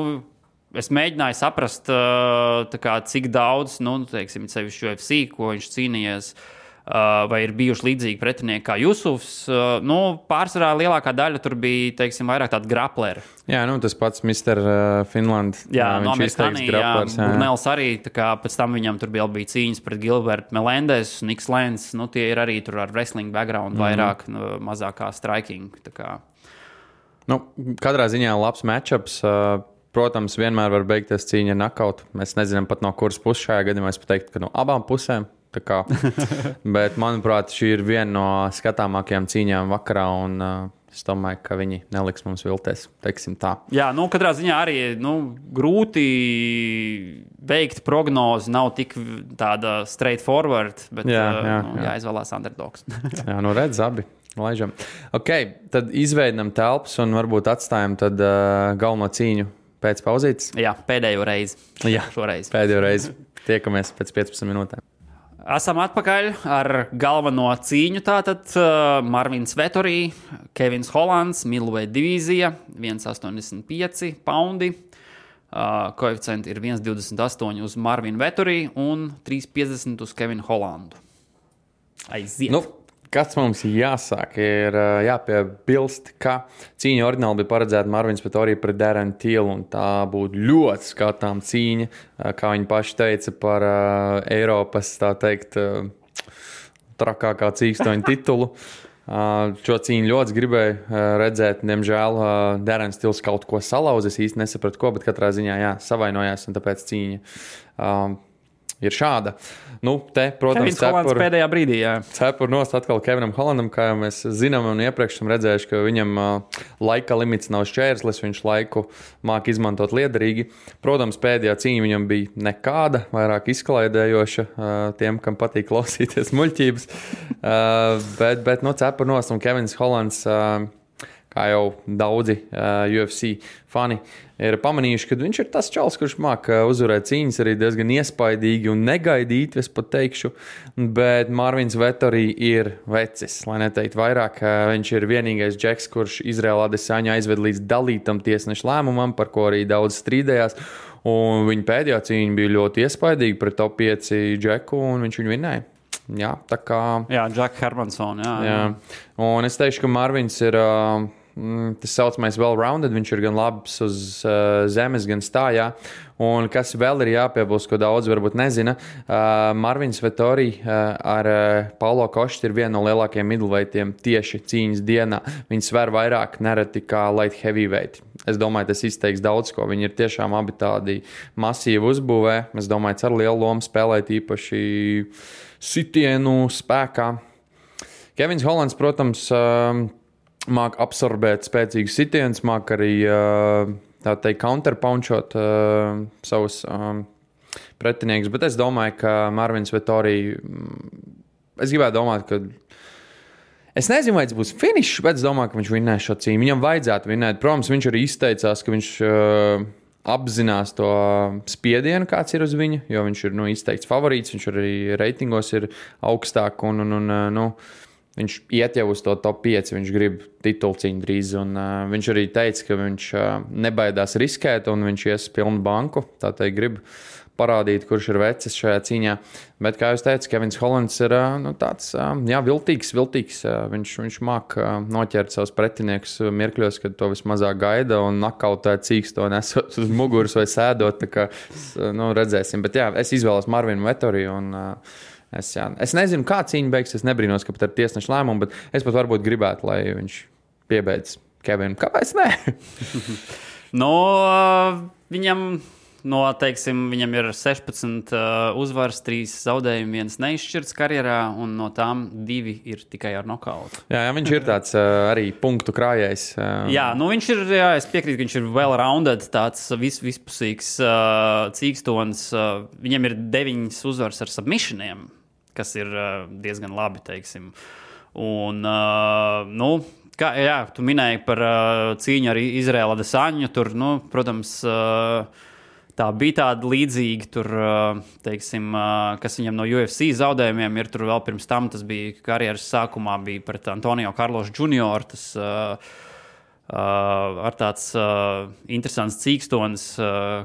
es mēģināju saprast, tā kā, cik daudz, nu, teiksim, sevišķi UFC, ko viņš cīnījies, vai ir bijuši līdzīgi pretinieki kā Jusufs. Nu, pārsvarā lielākā daļa tur bija, teiksim, vairāk tādi grapleri. Jā, nu, tas pats Mr. Finland. Jā, no viņš izteiks graplers. Brunels arī, tā kā pēc tam viņam tur bija cīņas pret Gilbertu Melendez, Niks Lenz, nu, tie ir arī tur ar wrestling background vairāk, mazākā striking, tā kā. Nu, katrā ziņā labs matchups. Protams, vienmēr var beigties cīņa ar nakautu. Mēs nezinām pat no kuras puses šajā gadījumā. Es pateiktu, ka no abām pusēm. Bet, manuprāt, šī ir viena no skatāmākajām cīņām vakarā, un es domāju, ka viņi neliks mums vilties, teiksim tā. Jā, nu, katrā ziņā arī, nu, grūti veikt prognozi, nav tik tāda straightforward, bet jāizvēlās underdogs. Jā, nu redz abi. Laižam. Ok, tad izveidam telpas un varbūt atstājam tad galveno cīņu pēc pauzītes. Jā, pēdējo reizi. Jā, šoreiz. Pēdējo reizi. Tiekamies pēc 15 minūtēm. Esam atpakaļ ar galveno cīņu. Tātad Marvins Vettori, Kevins Hollands, Middleweight divīzija, 1,85 poundi. Koeficienti ir 1,28 uz Marvinu Vettori un 3,50 uz Kevinu Hollandu. Aiziet! Nu, kas mums jāsāk, ir jāpiebilst, ka cīņa oriģināli bija paredzēta Marvins Vettori pret Darren Till, un tā būtu ļoti skatām cīņa, kā viņi paši teica, par Eiropas, tā teikt, trakākā cīkstoņa titulu. Šo cīņu ļoti gribēju redzēt. Diemžēl Darrens Tills kaut ko salauz. Es īsti nesapratu, ko, bet katrā ziņā savainojās, un tāpēc cīņa ir šāda. Nu, te, protams, Kevins Hollands pēdējā brīdī, cepur nost atkal Kevinam Hollandam, kā jau mēs zinām un iepriekš esam redzējuši, ka viņam laika limits nav šķērslis, viņš laiku māk izmantot liederīgi. Protams, pēdējā cīņa viņam bija nekāda, vairāk izklaidējoša tiem, kam patīk klausīties muļķības. Bet nu, cepur nost un Kevins Hollands, kā jau daudzi UFC fani ir pamanījuši, ka viņš ir tas čals, kurš māk uzvarēt cīņas arī diezgan iespaidīgi un negaidīt, es pat teikšu, bet Marvins Vettori ir vecis, lai neteikt vairāk. Viņš ir vienīgais džeks, kurš Izraela Adesaņa aizved līdz dalītam tiesnešu lēmumam, par ko arī daudz strīdējās, un viņa pēdējā cīņa bija ļoti iespaidīga pret top 5 džeku, un viņš viņu vinnēja. Jā, tā kā... Jā, Jack Hermanson, jā. Un es teikšu, ka Marvins ir... tas saucamais well-rounded, viņš ir gan labs uz zemes, gan stājā. Un kas vēl ir jāpiebilst, ko daudz varbūt nezina, Marvins Vettori ar Paulo Koštu ir viena no lielākajiem middleweightiem tieši cīņas dienā. Viņi sver vairāk nereti kā light heavyweight. Es domāju, tas izteiks daudz ko. Viņi ir tiešām abi tādi masīvi uzbūvē. Es domāju, ar lielu lomu spēlēt īpaši sitienu spēkā. Kevins Hollands, protams, māk absorbēt spēcīgus sitienus, māk arī tā teikt counterpunchot savus pretiniekus, bet es domāju, ka Marvins Vettori, es gribētu domāt, ka es nezinu, vai tas būs finišs, bet es domāju, ka viņš vinnēs šo cīņu. Viņam vajadzētu vinnēt. Protams, viņš arī izteicās, ka viņš apzinās to spiedienu, kāds ir uz viņu, jo viņš ir izteikts favorīts, viņš arī reitingos ir augstāk un viņš iet jau uz to top 5, viņš grib titulcīņu drīz, un viņš arī teica, ka viņš nebaidās riskēt, un viņš ies pilnu banku, tā teikt grib parādīt, kurš ir vecis šajā cīņā. Bet, kā jūs teicat, Kevins Hollands ir tāds, viltīgs. Viņš māk noķert savus pretiniekus mirkļos, kad to vismazāk gaida, un nakautēt cīksto nesot uz muguras vai sēdot, tā kā, redzēsim. Bet es izvēlos Marvinu Vettori, un es nezinu, kā cīņa beigs, es nebrīnos, ka pat ar tiesnešu lēmumu, bet es pat varbūt gribētu, lai viņš piebeidz Kevinu. Kāpēc ne? Viņam, viņam ir 16 uzvaras, 3 zaudējumi, 1 neizšķirts karjerā, un no tām 2 ir tikai ar nokautu. Jā, viņš ir tāds arī punktu krājējs. Viņš ir, es piekrītu, ka viņš ir well-rounded, tāds vispusīgs cīkstons. Viņam ir 9 uzvaras ar submissioniem, kas ir diezgan labi, teiksim. Un, tu minēji par cīņu ar Izraela Adesaņu, tur, protams, tā bija tāda līdzīga, tur, teiksim, kas viņam no UFC zaudējumiem ir, tur vēl pirms tam, tas bija karjeras sākumā, bija pret Antonio Carlos Jr., tas ar tāds interesants cīkstons,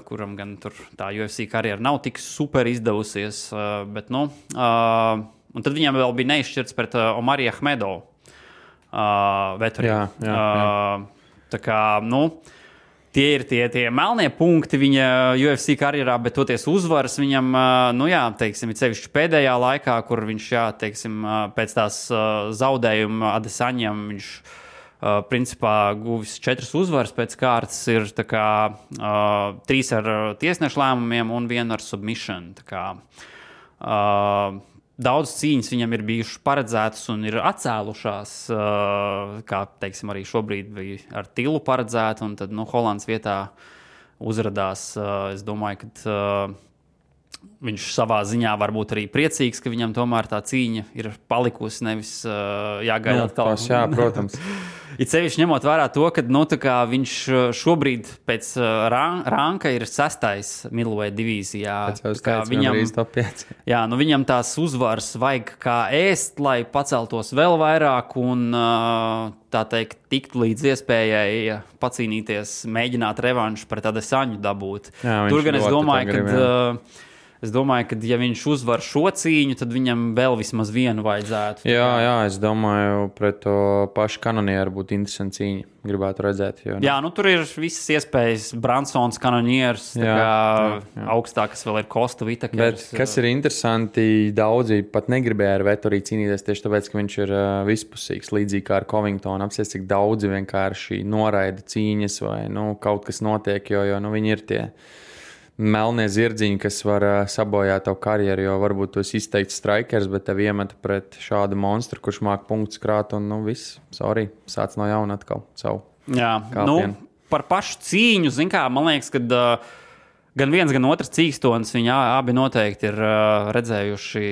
kuram gan tur tā UFC karjera nav tik super izdevusies, bet, un tad viņam vēl bija neizšķirts pret Omari Ahmedovu Vettori. Tā kā, tie ir tie melnie punkti viņa UFC karjerā, bet toties uzvaras viņam, teiksim, ir sevišķi pēdējā laikā, kur viņš, teiksim, pēc tās zaudējuma Adesaņam viņš principā guvis 4 uzvaras pēc kārtas, ir tā kā 3 ar tiesnešu lēmumiem un 1 ar submission. Tā kā daudz cīņas viņam ir bijušas paredzētas un ir atcēlušās, kā, teiksim, arī šobrīd bija ar Tillu paredzēta, un tad, Hollands vietā uzradās. Es domāju, ka viņš savā ziņā varbūt arī priecīgs, ka viņam tomēr tā cīņa ir palikusi, nevis jāgaida atkal. Jā, protams. It sevišķi ņemot vērā to, ka viņš šobrīd pēc ranka ir 6. middleweight divīzijā. Viņam tās uzvaras vajag kā ēst, lai paceltos vēl vairāk un, tā teikt, tiktu līdz iespējai pacīnīties, mēģināt revanšu pret Adesaņu dabūt. Tur gan es domāju, ka ja viņš uzvar šo cīņu, tad viņam vēl vismaz vienu vajadzētu. Jā, es domāju, pret to pašu Kanonieru būtu interesanti cīņa. Gribētu redzēt. Tur ir visas iespējas. Bransons, Kanonieris, augstākas vēl ir Kosta Vitakers. Bet kas ir interesanti, daudzi pat negribēja ar Vettori cīnīties tieši tāpēc, ka viņš ir vispusīgs, līdzīgi kā ar Covingtonu. Apsies, cik daudzi vienkārši noraida cīņas vai kaut kas notiek, jo viņi ir tie melnie zirdziņi, kas var sabojāt tavu karjeru, jo varbūt tu esi izteikts strikers, bet tev iemeta pret šādu monstru, kurš māk punktus krāt un viss, sāc no jauna atkal savu kāpienu. Par pašu cīņu, man liekas, ka gan viens, gan otrs cīkstonis, viņi abi noteikti ir redzējuši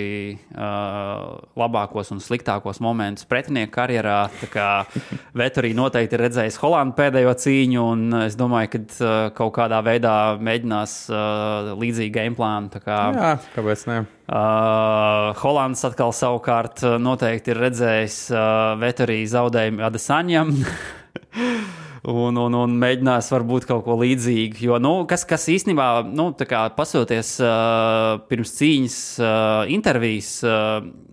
labākos un sliktākos momentus pretinieku karjerā. Tā kā Vettori noteikti ir redzējis Holandu pēdējo cīņu, un es domāju, ka kaut kādā veidā mēģinās līdzīgu gameplānu. Jā, kāpēc ne? Holands atkal savukārt noteikti ir redzējis Vettori zaudējumu Adesaņam. Un mēģinās varbūt kaut ko līdzīgu. Jo, kas īstenībā, pasoties pirms cīņas intervijas,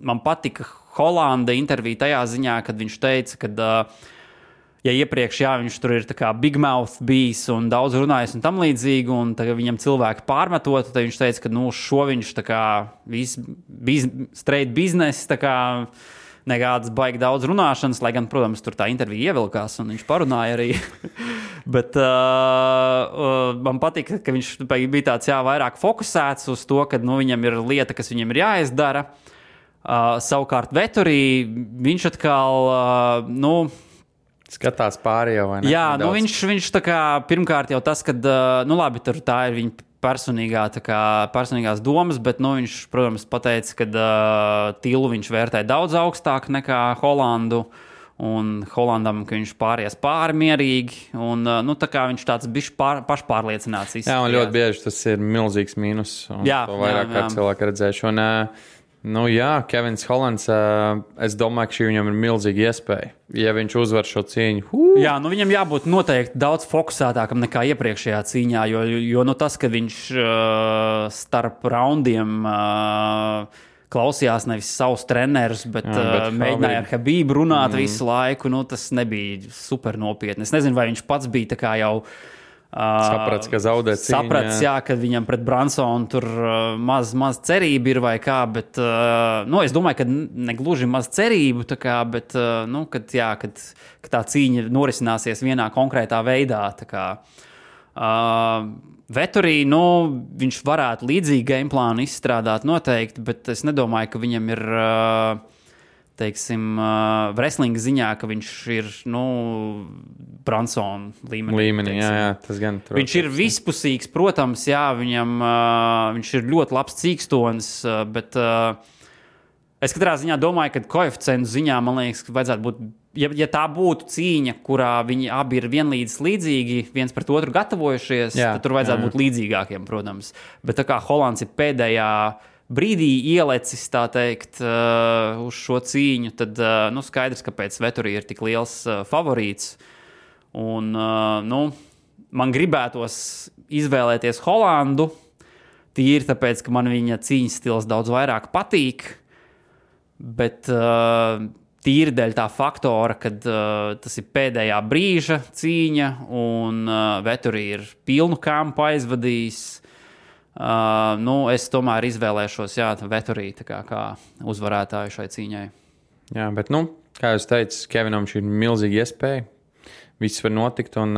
man patika Holanda intervija tajā ziņā, kad viņš teica, ka, ja iepriekš viņš tur ir tā kā big mouth bijis un daudz runājis un tam līdzīgi, un tagad viņam cilvēki pārmetot, tad viņš teica, ka šo viņš tā kā straight business, tā kā nekādas baigi daudz runāšanas, lai gan, protams, tur tā intervija ievilkās un viņš parunāja arī. Bet man patika, ka viņš bija tāds vairāk fokusēts uz to, ka viņam ir lieta, kas viņam ir jāizdara. Savukārt Vettori, viņš atkal, skatās pāri jau, vai ne? Jā, viņš tā kā, pirmkārt jau tas, kad, labi, tur tā ir viņa personīgās domas, bet viņš, protams, pateica, ka Tilu viņš vērtē daudz augstāk nekā Holandu, un Holandam, ka viņš pāries pāri mierīgi, un tā kā viņš tāds bišķi pašpārliecināts izskatījās. Jā, un ļoti bieži tas ir milzīgs mīnus, un to vairāk kā cilvēki redzējuši. Un, Kevins Holands, es domāju, ka šī viņam ir milzīga iespēja. Ja viņš uzvar šo cīņu. Jā, viņam jābūt noteikti daudz fokusētākam nekā iepriekšējā cīņā, jo tas, ka viņš starp raundiem klausījās nevis savus trenerus, bet mēģināja ar Habību runāt visu laiku, tas nebija super nopietni. Es nezinu, vai viņš pats bija tā kā jau saprats, ka zaudē cīņu. Saprats, kad viņam pret Bransonu tur maz cerība ir vai kā, bet es domāju, ka negluži maz cerību, bet kad tā cīņa norisināsies vienā konkrētā veidā. Vettori, viņš varētu līdzīgu gameplānu izstrādāt noteikti, bet es nedomāju, ka viņam ir teiksim, wrestling ziņā, ka viņš ir, Bransona līmenī. Jā, tas gan. Viņš ir vispusīgs, protams, viņš ir ļoti labs cīkstonis, bet es katrā ziņā domāju, ka koeficientu ziņā, man liekas, ka vajadzētu būt, ja tā būtu cīņa, kurā viņi abi ir vienlīdz līdzīgi, viens pret otru gatavojušies, tad tur vajadzētu būt līdzīgākiem, protams. Bet tā kā Holands ir pēdējā brīdī ielecis, tā teikt, uz šo cīņu, tad skaidrs, kāpēc Vettori ir tik liels favorīts. Un, man gribētos izvēlēties Holandu, tīri tāpēc, ka man viņa cīņas stils daudz vairāk patīk, bet tīri dēļ tā faktora, kad tas ir pēdējā brīža cīņa un Vettori ir pilnu kampu aizvadījis. Es tomēr izvēlēšos Vettori kā uzvarētāju šai cīņai. Jā, bet, kā jūs teicat, Kevinam šī ir milzīga iespēja. Viss var notikt, un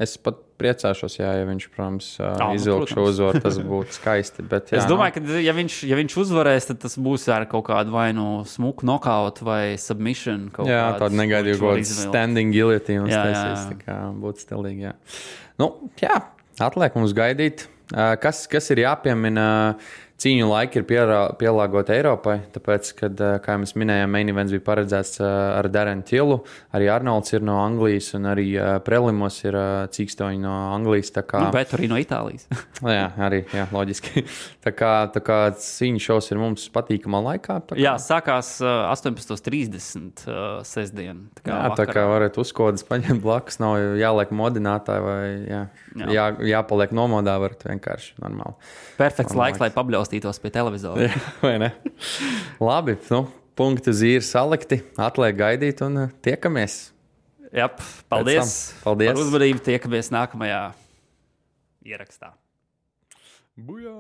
es pat priecāšos, ja viņš, protams, izvilk šo uzvaru, tas būtu skaisti. Bet, es domāju, ka ja viņš uzvarēs, tad tas būs ar kaut kādu vai smuku knockout vai submission. Tādu negaidīju kaut kādu standing guillotine. Tā kā būtu stilīgi, atliek mums gaidīt. Kas ir jāpiemina cīņu laiki ir pielāgoti Eiropai, tāpēc, kad, kā jau mēs minējām, main events bija paredzēts ar Darren Tillu, arī Arnolds ir no Anglijas, un arī prelimos ir cīkstoņi no Anglijas. Bet arī no Itālijas. Jā, arī, jā, loģiski. Tā kā cīņu šovs ir mums patīkamā laikā. Jā, sākās 18:30 sestdien. Tā kā varat uzkodas paņemt blakus, nav jāliek modinātāji vai jāpaliek nomodā, varat vienkārši normāli. Perfekts laiks, lai pabļaustītos pie televizora. Jā, vai ne? Labi, punkti uz īri salikti, atliek gaidīt un tiekamies. Jā, paldies. Paldies par uzmanību, tiekamies nākamajā ierakstā. Bujā!